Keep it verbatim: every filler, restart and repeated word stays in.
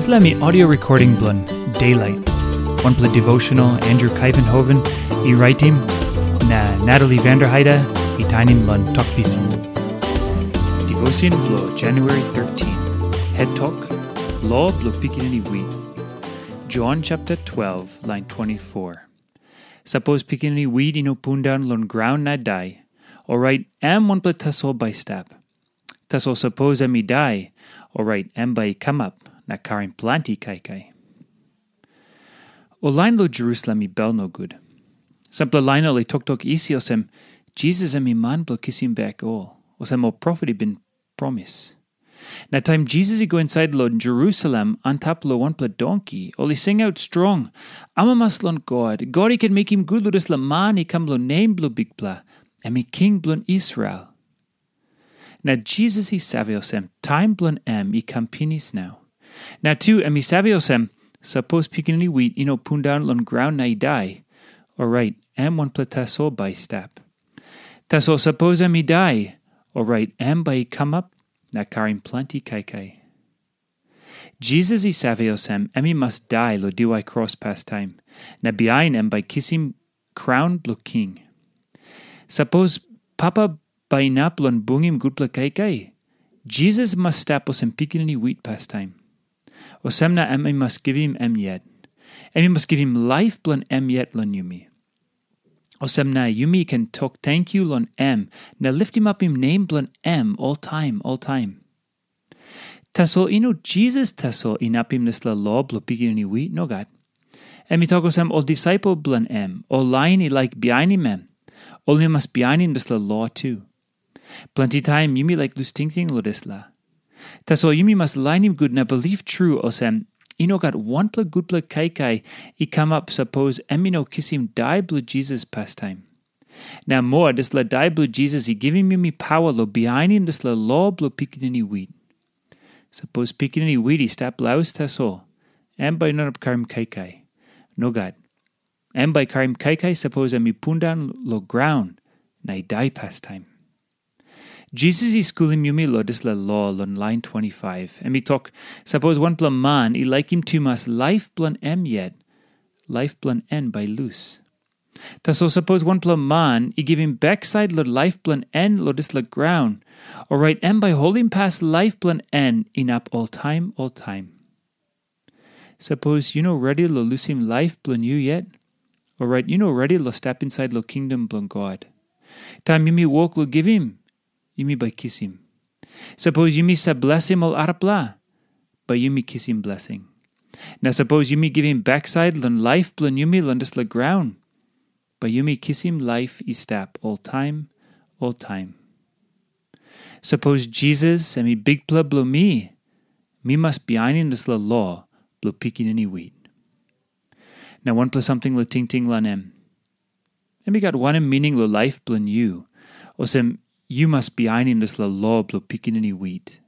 Dispela mi audio recording bilong Daylight, wanpela devotional Andrew Kaivenhoven i raitim, na Natalie Vanderheide i tainim long Tok Pisin. Devotion bilong January thirteen. Het tok, Lo bilong Pikinini Wit. John chapter twelve, line twenty-four. Sapos pikinini wit i no pundaun long graun na dai, orait em wanpela tasol bai i stap. Tasol sapos em i dai, orait em bai i kamap na karim planti kaikai. Ol lain long Jerusalem i bel nogut. Sampela lain ol i toktok isi olsem, Jisas em i man bilong kisim bek ol, olsem ol profet i bin promis. Na taim Jisas i go insait long Jerusalem antap long wanpela donki, ol i singaut strong, amamas long God, God i ken mekim gut long dispela man i kam long nem bilong Bikpela, em i king bilong Israel. Na Jisas i save olsem, taim bilong em i kam pinis nau. Na tu em i save olsem, sapos pikinini wit i no pundaun long graun na i dai, orait em wanpela tasol bai i stap. Tasol sapos em i dai, orait em bai i kamap na karim planti kaikai. Jisas i save olsem, em i mas dai long diwai kros pastaim, na bihain em bai kisim kraun bilong king. Sapos Papa bai inap long bungim gutpela kaikai, Jisas mas stap olsem pikinini wit pastaim. Olsem na em i mas givim em yet. Em i mas givim laip bilong em yet long yumi. Olsem na yumi ken tok tenkyu long em na litimapim nem bilong em oltaim oltaim. Tasol i no Jisas tasol inapim dispela lo bilong pikinini wit, nogat. Em i tok olsem ol disaipel bilong em, ol lain i laik bihainim em, ol i mas bihainim dispela lo tu. Planti taim yumi laik lus tingting long dispela. Tasol yumi mas lainim gut na bilip tru olsem, i no gat wanpela gutpela kaikai i kamap sapos em i no kisim dai bilong Jisas pastaim. Na moa, dispela dai bilong Jisas i givim yumi pawa long bihainim dispela lo bilong pikinini wit. Sapos pikinini wit i stap laus tasol, em bai i no inap karim kaikai. Nogat. Em bai i karim kaikai sapos em i pundaun long graun na i dai pastaim. Jisas i skulim yumi long dispela lo long lain twenty-five. Em i tok, sapos wanpela man i laikim tumas laip bilong em yet, laip bilong en bai i lus. Tasol sapos wanpela man i givim baksait long laip bilong en long dispela graun, orait em bai i holimpas laip bilong en inap oltaim oltaim. Sapos yu no redi long lusim laip bilong yu yet, orait yu no redi long stap insait long kingdom bilong God. Taim yumi wok long givim, yumi bai kisim. Sapos yumi save blesim ol arapela, bai yumi kisim blesing. Na sapos yumi givim baksait long laip bilong yumi long dispela graun, bai yumi kisim laip i stap oltaim oltaim. Sapos Jisas em i Bikpela bilong mi, mi mas bihainim dispela lo bilong pikinini wit. Na wanpela samting long tingting long em. Em i gat wanem mining long laip bilong yu, olsem yu mas bihainim dispela lo bilong pikinini wit?